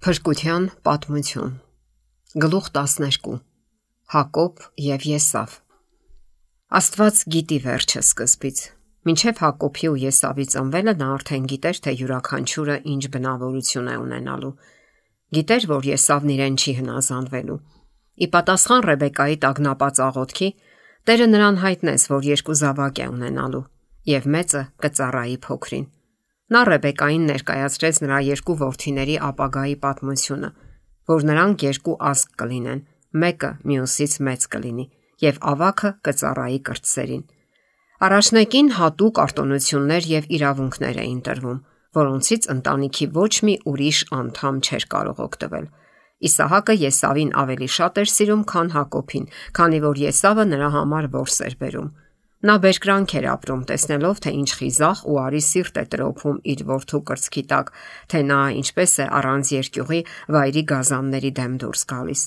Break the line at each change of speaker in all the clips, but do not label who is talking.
Փրկության պատմություն։ Գլուխ 12։ Հակոբ եւ Եսավ։ Աստված գիտի վերջը սկզբից։ Մինչև Հակոբի ու Եսավի ծնվելը նա արդեն գիտեր, թե յուրաքանչյուրը ինչ բնավորություն է ունենալու։ Գիտեր, որ Եսավն իրեն չի հնազանդվելու։ Ի պատասխան Ռեբեկայի տագնապած աղոթքի, Տերը նրան հայտնեց, որ երկու զավակ է ունենալու, եւ մեծը կծառայի փոքրին։ Նա Ռեբեկային ներկայացրեց նրա երկու որդիների ապագայի պատմությունը, որ նրանք երկու ազգ կլինեն, մեկը մյուսից մեծ կլինի, եւ ավագը կծառայի կրտսերին։ Առաջնեկին հատուկ արտոնություններ եւ իրավունքներ էին տրվում, որոնցից ընտանիքի ոչ մի ուրիշ անդամ չէր կարող օգտվել։ Իսահակը Եսավին ավելի շատ էր սիրում, քան Հակոբին, քանի որ Եսավը նրա համար որս էր բերում։ Նա բերկրանք էր ապրում, տեսնելով, թե ինչ խիզախ ու արի սիրտ է տրոփում իր որդու կրծքի տակ, թե նա ինչպես է առանց երկյուղի վայրի գազանների դեմ դուրս գալիս։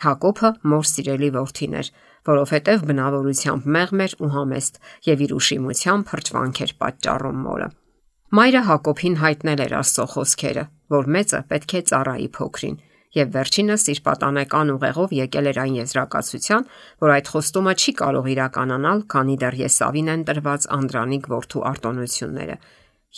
Հակոբը մոր սիրելի որդին էր, որովհետև բնավորությամբ մեղմ էր ու համեստ եւ իր ուշիմությամբ հրճվանք էր պատճառում մորը։ Մայրը Հակոբին հայտնել էր Աստծո խոսքերը, որ մեծը պետք է ծառայի փոքրին, եւ վերջինս իր պատանեկան ուղեղով եկել էր այն եզրակացության, որ այդ խոստումը չի կարող իրականանալ, քանի դեռ Եսավին են տրված անդրանիկ որդու արտոնությունները։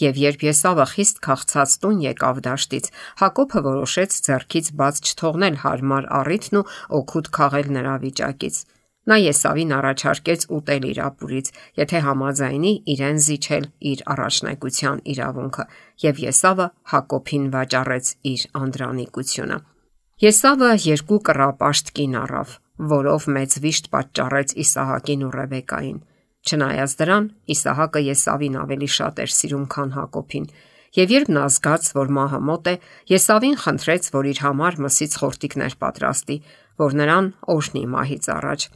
Եվ երբ Եսավը խիստ քաղցած տուն եկավ դաշտից, Հակոբը որոշեց ձեռքից բաց չթողնել հարմար առիթն ու օգուտ քաղել նրա վիճակից։ Նա Եսավին առաջարկեց ուտել իր ապուրից, եթե համաձայնի իրեն զիջել իր առաջնեկության իրավունքը, եւ Եսավը Հակոբին վաճառեց իր անդրանիկությունը։ Եսավը երկու կռապաշտ կին առավ, որով մեծ վիշտ պատճառեց Իսահակին ու Ռեբեկային։ Չնայած դրան, Իսահակը Եսավին ավելի շատ էր սիրում, քան Հակոբին, եւ երբ նա զգաց, որ մահը մոտ է, Եսավին խնդրեց, որ իր համար մսից խորտիկներ պատրաստի, որ նրան օրհնի մահից առաջ։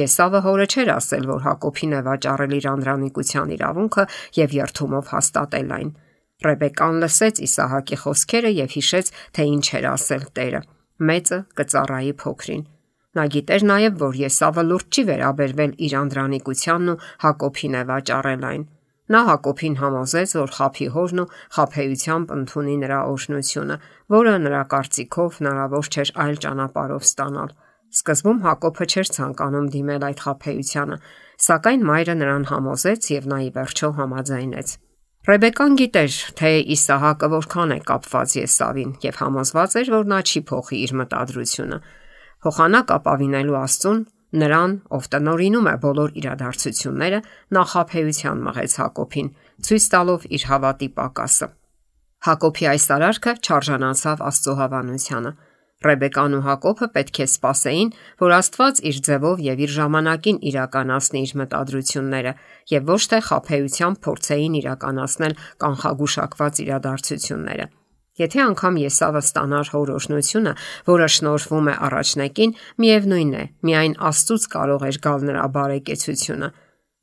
Եսավը հորը չէր ասել, որ Հակոբին է վաճառել իր անդրանիկության իրավունքը եւ երթումով հաստատել այն։ Ռեբեկան լսեց Իսահակի խոսքերը եւ հիշեց, թե ինչ էր ասել Տերը. մեծը կծառայի փոքրին։ Նա գիտեր նաեւ, որ Եսավը լուրջ չի վերաբերվել իր անդրանիկությանն ու Հակոբին է վաճառել այն։ Նա Հակոբին համոզեց, որ խաբի հորն ու խաբեությամբ ընդունի նրա օրհնությունը, որը նրա կարծիքով հնարավոր չէր այլ ճանապարհով ստանալ։ Սկզբում Հակոբը չէր ցանկանում դիմել այդ խաբեությանը, սակայն մայրը նրան համոզեց եւ նա ի վերջո համաձայնեց։ Ռեբեկան գիտեր, թե Իսահակը որքան է կապված Եսավին եւ համոզված էր, որ նա չի փոխի իր մտադրությունը։ Փոխանակ ապավինելու Աստծուն, նրան, ով տնօրինում է բոլոր իրադարձությունները, նախապեյության մղեց Հակոբին, ցույց տալով իր հավատի պակասը։ Հակոբի այս արարքը չարժանացավ Աստծո հավանությանը։ Ռեբեկան ու Հակոբը պետք է սպասեին, որ Աստված իր ձևով եւ իր ժամանակին իրականացնի իր մտադրությունները եւ ոչ թե խաբեությամբ փորձեին իրականացնել կանխագուշակված իրադարձությունները։ Եթե անգամ Եսավը ստանար հոր օրհնությունը, որը շնորհվում է առաջնեկին, միևնույն է, միայն Աստծուց կարող էր գալ նրա բարեկեցությունը։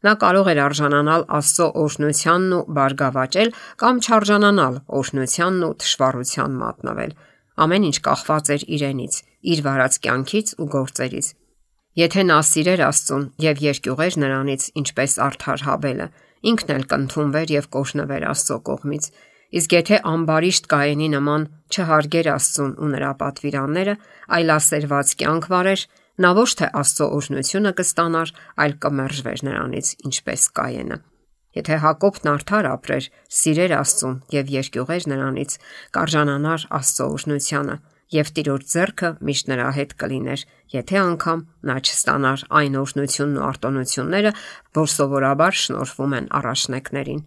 Նա կարող էր արժանանալ Աստծո օրհնությանն ու բարգավաճել կամ չարժանանալ օրհնությանն ու թշվառության մատնվել։ Ամեն ինչ կախված էր իրենից, իր վարած կյանքից ու գործերից։ Եթե նա սիրեր Աստծուն եւ երկյուղեր նրանից, ինչպես արդար Հաբելը, ինքն էլ կընդունվեր եւ կօրհնվեր Աստծո կողմից։ Իսկ եթե ամբարիշտ Կայենի նման չհարգեր Աստծուն ու նրա պատվիրանները, այլ ասերված կյանք վարեր, նա ոչ թե Աստծո օրհնությունը կստանար, այլ կմերժվեր նրանից, ինչպես Կայենը։ Եթե Հակոբն արդար ապրեր, սիրեր Աստծուն եւ երկյուղեր նրանից, կարժանանար Աստծո օրհնությանը եւ Տիրոջ ձեռքը միշտ նրա հետ կլիներ, եթե անգամ նա չստանար այն օրհնությունն ու արտոնությունները, որ սովորաբար շնորհվում են առաջնեկներին։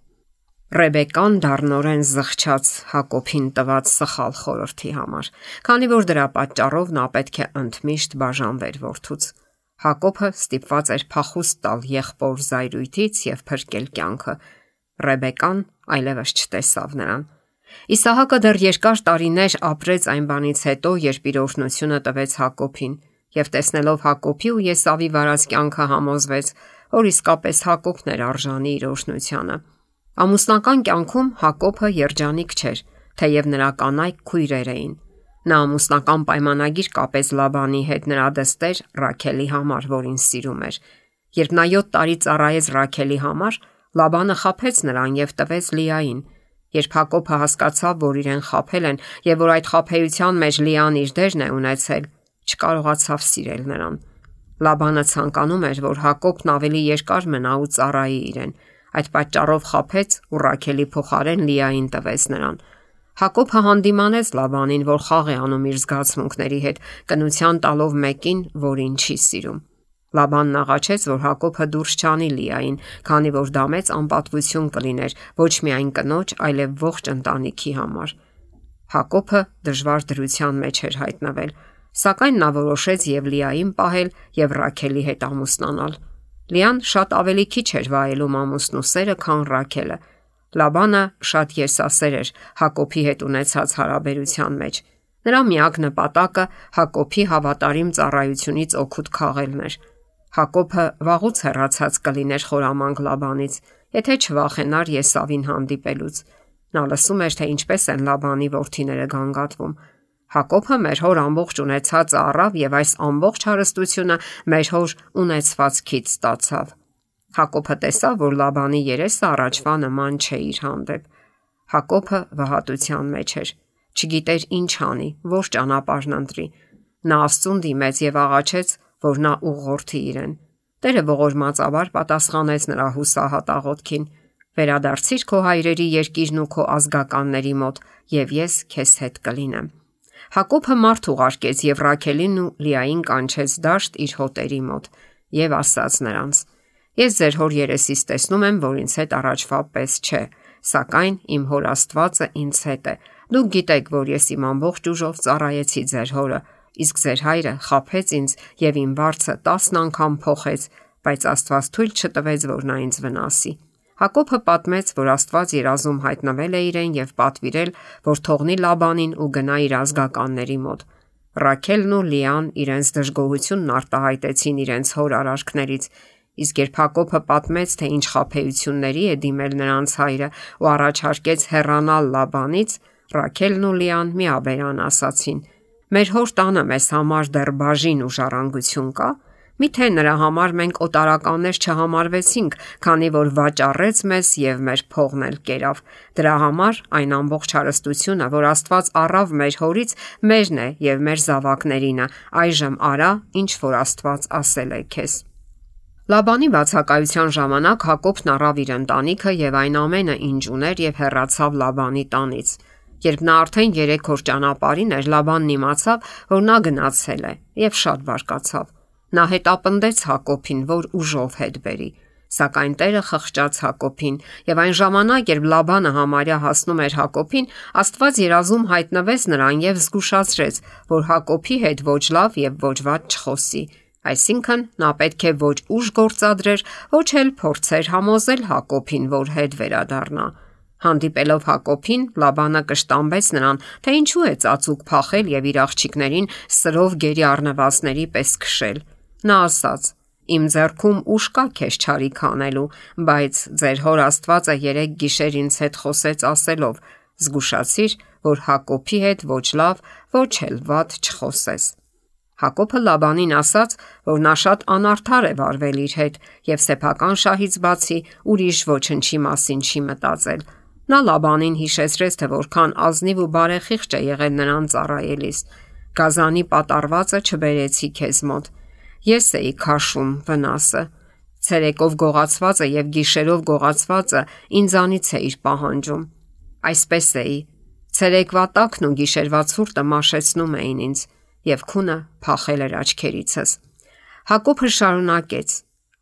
Ռեբեկան դառնորեն զղջաց Հակոբին տված սխալ խորհրդի համար, քանի որ դրա պատճառով նա պետք է ընդմիշտ բաժանվեր որդուց։ Հակոբը ստիպված էր փախուստ տալ եղբոր զայրույթից եւ փրկել կյանքը։ Ռեբեկան այլևս չտեսավ նրան։ Իսահակը դեռ երկար տարիներ ապրեց այն բանից հետո, երբ իր օրհնությունը տվեց Հակոբին, եւ տեսնելով Հակոբի ու Եսավի վարած կյանքը համոզվեց, որ իսկապես Հակոբն էր արժանի իր օրհնությանը։ Ամուսնական կյանքում Հակոբը երջանիկ չէր, թեև նրա կանայք քույրեր էին։ Նա ամուսնական պայմանագիր կապեց Լաբանի հետ նրա դստեր Ռաքելի համար, որին սիրում էր։ Երբ նա 7 տարի ծառայեց Ռաքելի համար, Լաբանը խաբեց նրան եւ տվեց Լիային։ Երբ Հակոբը հասկացավ, որ իրեն խաբել են եւ որ այդ խաբեության մեջ Լիան իր դերն է ունեցել, չկարողացավ սիրել նրան։ Լաբանը ցանկանում էր, որ Հակոբն ավելի երկար մնա ու ծառայի իրեն։ Այդ պատճառով խաբեց ու Ռաքելի փոխարեն Լիային տվեց նրան։ Հակոբը հանդիմանեց Լաբանին, որ խաղ է անում իր զգացմունքների հետ, կնության տալով մեկին, որին չի սիրում։ Լաբանն աղաչեց, որ Հակոբը դուրս չանի Լիային, քանի որ դա մեծ անպատվություն կլիներ ոչ միայն կնոջ, այլև ողջ ընտանիքի համար։ Հակոբը դժվար դրության մեջ էր հայտնվել, սակայն նա որոշեց եւ Լիային պահել եւ Ռաքելի հետ ամուսնանալ։ Լիան շատ ավելի քիչ էր վայելում ամուսնու սերը, քան Ռաքելը։ Լաբանը շատ եսասեր էր Հակոբի հետ ունեցած հարաբերության մեջ։ Նրա միակ նպատակը Հակոբի հավատարիմ ծառայությունից օգուտ քաղելն էր։ Հակոբը վաղուց հեռացած կլիներ խորամանկ Լաբանից, եթե չվախենար Եսավին հանդիպելուց։ Նա լսում էր, թե ինչպես են Լաբանի որդիները գանգատվում։ Հակոբը մեր հոր ամբողջ ունեցածը առավ եւ այս ամբողջ հարստությունը մեր հոր ունեցվածքից ստացավ։ Հակոբը տեսավ, որ Լաբանի երեսը առաջվա նման չէ իր հանդեպ։ Հակոբը վհատության մեջ էր։ Չգիտեր ինչ անի, որ ճանապարհն ընտրի։ Նա Աստծուն դիմեց եւ աղաչեց, որ նա ուղղորդի իրեն։ Տերը ողորմածաբար պատասխանեց նրա հուսահատ աղոթքին. «Վերադարձիր քո հայրերի երկիրն ու քո ազգականների մոտ, եւ ես քեզ հետ կլինեմ»։ Հակոբը մարդ ուղարկեց եւ Ռաքելին ու Լիային կանչեց դաշտ իր հոտերի մոտ եւ ասաց նրանց. «Ես ձեր հոր երեսից տեսնում եմ, որ ինձ հետ առաջվա պես չէ, սակայն իմ հոր Աստվածը ինձ հետ է։ Դուք գիտեք, որ ես իմ ամբողջ ուժով ծառայեցի ձեր հորը, իսկ ձեր հայրը խաբեց ինձ եւ իմ վարձը 10 անգամ փոխեց, բայց Աստված թույլ չտվեց, որ նա ինձ վնասի»։ Հակոբը պատմեց, որ Աստված երազում հայտնվել է իրեն եւ պատվիրել, որ թողնի Լաբանին ու գնա իր ազգականների մոտ։ Ռաքելն ու Լիան իրենց դժգոհությունն արտահայտեցին իրենց հոր արարքներից, իսկ երբ Հակոբը պատմեց, թե ինչ խաբեությունների է դիմել նրանց հայրը ու առաջարկեց հեռանալ Լաբանից, Ռաքելն ու Լիան միաբերան ասացին. «Մեր հոր տանը մեզ համար դեռ բաժին ու ժառանգություն կա։ Միթե նրա համար մենք օտարականներ չհամարվեցինք, քանի որ վաճառեց մեզ եւ մեր փողն էլ կերավ։ Դրա համար այն ամբողջ հարստությունը, որ Աստված առավ մեր հորից, մերն է եւ մեր զավակներինը։ Այժմ արա, ինչ որ Աստված ասել է քեզ»։ Լաբանի բացակայության ժամանակ Հակոբն առավ իր ընտանիքը եւ այն ամենը, ինչ ուներ, եւ հեռացավ Լաբանի տանից։ Երբ նա արդեն 3 օր ճանապարհին էր, Լաբանն իմացավ, որ նա գնացել է եւ շատ բարկացավ։ Նա հետապնդեց Հակոբին, որ ուժով հետ բերի, սակայն Տերը խղճաց Հակոբին եւ այն ժամանակ, երբ Լաբանը համարյա հասնում էր Հակոբին, Աստված երազում հայտնվեց նրան եւ զգուշացրեց, որ Հակոբի հետ ոչ լավ եւ ոչ վատ չխոսի։ Այսինքն նա պետք է ոչ ուժ գործադրեր, ոչ էլ փորձեր համոզել Հակոբին, որ հետ վերադառնա։ Հանդիպելով Հակոբին, Լաբանը կշտամբեց նրան, թե ինչու է ծածուկ փախել եւ իր աղջիկներին սրով գերի առնվածների պես քշել։ Նա ասաց. «Իմ ձեռքում ուժ կա քեզ չարիք անելու, բայց ձեր հոր Աստվածը 3 գիշեր ինձ հետ խոսեց ասելով. զգուշացիր, որ Հակոբի հետ ոչ լավ, ոչ էլ վատ չխոսես»։ Հակոբը Լաբանին ասաց, որ նա շատ անարդար է վարվել իր հետ եւ սեփական շահից բացի ուրիշ ոչնչի մասին չի մտածել։ Նա Լաբանին հիշեցրեց, թե որքան ազնիվ ու բարեխիղճ է եղել նրան ծառայելիս։ «Գազանի պատառվածը չբերեցի քեզ մոտ։ Ես էի քաշում վնասը։ Ցերեկով գողացվածը եւ գիշերով գողացվածը ինձանից էիր պահանջում։ Այսպես էի։ Ցերեկվա տակն ու գիշերվա ցուրտը մաշեցնում էին ինձ եւ քունը փախել էր աչքերիցս»։ Հակոբը շարունակեց.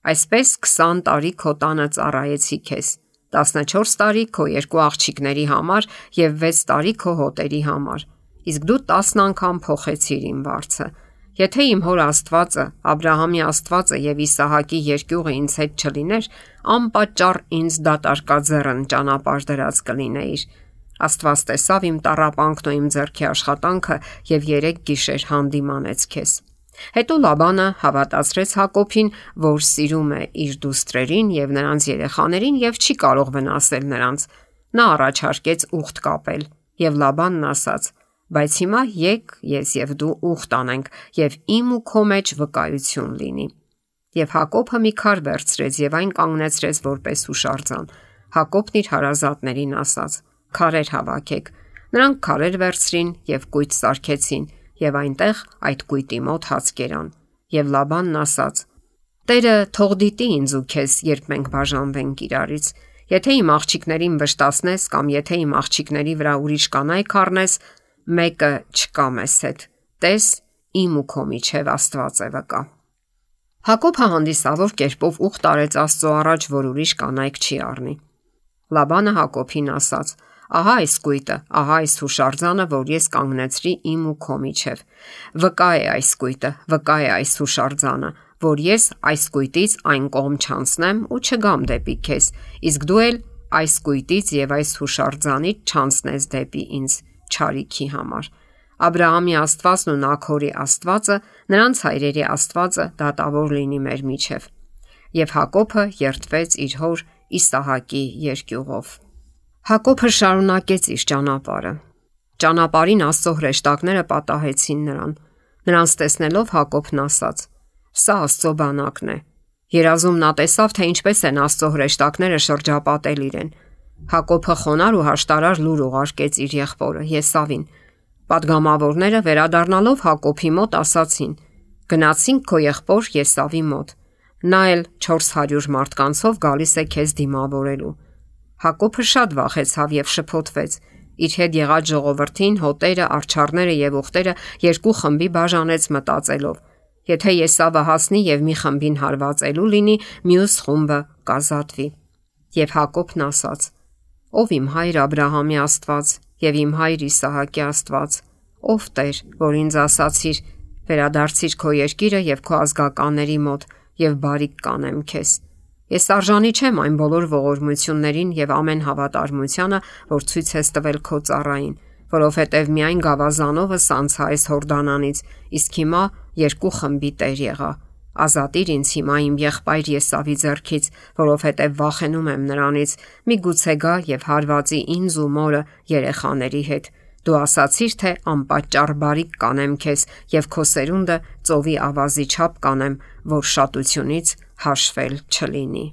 «Այսպես 20 տարի քո տանը ծառայեցի քեզ, 14 տարի քո 2 աղջիկների համար եւ 6 տարի քո հոտերի համար, իսկ դու 10 անգամ փոխեցիր իմ վարձը։ Եթե իմ հոր Աստվածը, Աբրահամի Աստվածը եւ Իսահակի երկյուղը ինձ հետ չլիներ, անպատճառ ինձ դատարկաձեռն ճանապարհ դրած կլինեիր։ Աստված տեսավ իմ տառապանքն ու իմ ձեռքի աշխատանքը եւ 3 գիշեր հանդիմանեց քեզ»։ Հետո Լաբանը հավատացրեց Հակոբին, որ սիրում է իր դուստրերին եւ նրանց երեխաներին եւ չի կարող վնասել նրանց։ Նա առաջարկեց ուխտ կապել եւ Լաբանն ասաց. «Բայց հիմա եկ ես եւ դու ուխտ անենք եւ իմ ու քո մեջ վկայություն լինի»։ Եվ Հակոբը մի քար վերցրեց եւ այն կանգնեցրեց որպես հուշարձան։ Հակոբն իր հարազատներին ասաց. քարեր հավաքեք։ Նրանք քարեր վերցրին եւ կույտ սարքեցին եւ այնտեղ այդ կույտի մոտ հաց կերան։ Եվ Լաբանն ասաց. Տերը թող դիտի ինձ ու քեզ, երբ մենք բաժանվենք իրարից։ Եթե իմ աղջիկներին վշտացնես կամ եթե իմ աղջիկների վրա ուրիշ կանայք առնես, մեկը չկա մեզ հետ։ Տես, իմ ու քո միջև Աստված է վկա։ Հակոբը հանդիսավոր կերպով ուխտ արեց Աստծո առաջ, որ ուրիշ կանայք չի առնի։ Լաբանը Հակոբին ասաց. Ահա այս կույտը, ահա այս հուշարձանը, որ ես կանգնեցրի իմ ու քո միջև։ Վկա է այս կույտը, վկա է այս հուշարձանը, որ ես այս կույտից այն կողմ չանցնեմ ու չգամ դեպի քեզ, իսկ դու էլ այս կույտից եւ այս հուշարձանից չանցնես դեպի ինձ չարիքի համար։ Աբրահամի Աստվածն ու Նաքորի Աստվածը, նրանց հայրերի Աստվածը դատավոր լինի մեր միջև։ Եվ Հակոբը երդվեց իր հոր Իսահակի երկյուղով։ Հակոբը շարունակեց իր ճանապարհը։ Ճանապարհին Աստծո հրեշտակները պատահեցին նրան։ Նրանց տեսնելով Հակոբն ասաց. Սա Աստծո բանակն է։ Երազում նա տեսավ, թե ինչպես են Աստծո հրեշտակները շրջապատել իրեն։ Հակոբը խոնար ու հաշտարար լուր ուղարկեց իր եղբորը Եսավին։ Պատգամավորները վերադառնալով Հակոբի մոտ ասացին. Գնացինք քո եղբոր Եսավի մոտ։ Նա էլ 400 մարդկանցով գալիս է քեզ դիմավորելու։ Հակոբը շատ վախեցավ եւ շփոթվեց։ Իր հետ եղած ժողովրդին, հոտերը, արջառները եւ ուխտերը երկու խմբի բաժանեց մտածելով. Եթե Եսավը հասնի եւ մի խմբին հարվածելու լինի, մյուս խումբը կազատվի։ Եվ Հակոբն ասաց. Ով իմ հայր Աբրահամի Աստված եւ իմ հայր Իսահակի Աստված, ով Տեր, որ ինձ ասացիր, վերադարձիր քո երկիրը եւ քո ազգականների մոտ եւ բարիք կանեմ քեզ։ Ես արժանի չեմ այն բոլոր ողորմություններին եւ ամեն հավատարմությանը, որ ցույց ես տվել քո ծառային, որովհետեւ միայն գավազանովս անցա այս Հորդանանից, իսկ հիմա երկու խմբի տեր եղա։ Ազատիր ինձ հիմա իմ եղբայր Եսավի ձեռքից, որովհետև վախենում եմ նրանից, միգուցե գա եւ հարվածի ինձ ու մորը երեխաների հետ։ Դու ասացիր, թե անպատճառ բարիք կանեմ քեզ եւ քո սերունդը ծովի ավազի չափ կանեմ, որ շատությունից հաշվել չլինի։